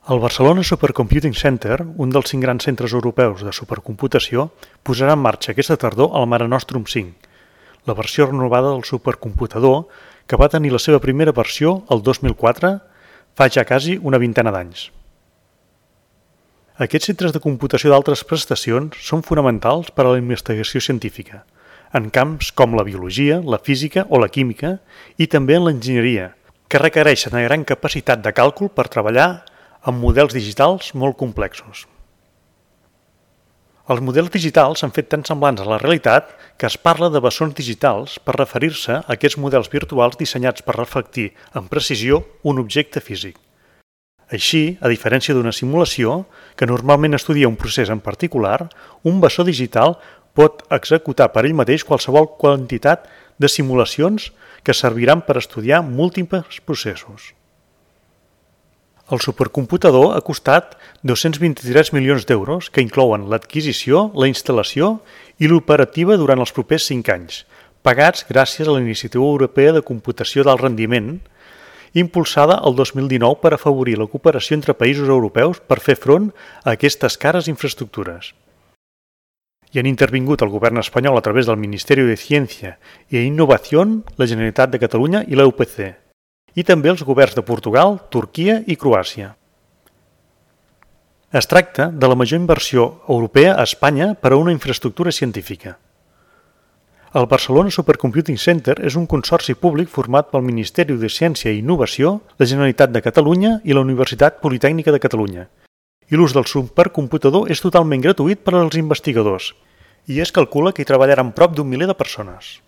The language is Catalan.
El Barcelona Supercomputing Center, un dels 5 grans centres europeus de supercomputació, posarà en marxa aquesta tardor el Mare Nostrum 5, la versió renovada del supercomputador que va tenir la seva primera versió el 2004, fa ja quasi una vintena d'anys. Aquests centres de computació d'altres prestacions són fonamentals per a la investigació científica, en camps com la biologia, la física o la química i també en l'enginyeria, que requereixen una gran capacitat de càlcul per treballar amb models digitals molt complexos. Els models digitals s'han fet tan semblants a la realitat que es parla de bessons digitals per referir-se a aquests models virtuals dissenyats per reflectir amb precisió un objecte físic. Així, a diferència d'una simulació, que normalment estudia un procés en particular, un bessó digital pot executar per ell mateix qualsevol quantitat de simulacions que serviran per estudiar múltiples processos. El supercomputador ha costat 223 milions d'euros que inclouen l'adquisició, la instal·lació i l'operativa durant els propers 5 anys, pagats gràcies a la Iniciativa Europea de Computació d'Alt Rendiment, impulsada el 2019 per afavorir la cooperació entre països europeus per fer front a aquestes cares infraestructures. Hi han intervingut el govern espanyol a través del Ministeri de Ciència i Innovació, la Generalitat de Catalunya i la UPC, i també els governs de Portugal, Turquia i Croàcia. Es tracta de la major inversió europea a Espanya per a una infraestructura científica. El Barcelona Supercomputing Center és un consorci públic format pel Ministeri de Ciència i Innovació, la Generalitat de Catalunya i la Universitat Politècnica de Catalunya. I l'ús del supercomputador és totalment gratuït per als investigadors i es calcula que hi treballaran prop d'1 miler de persones.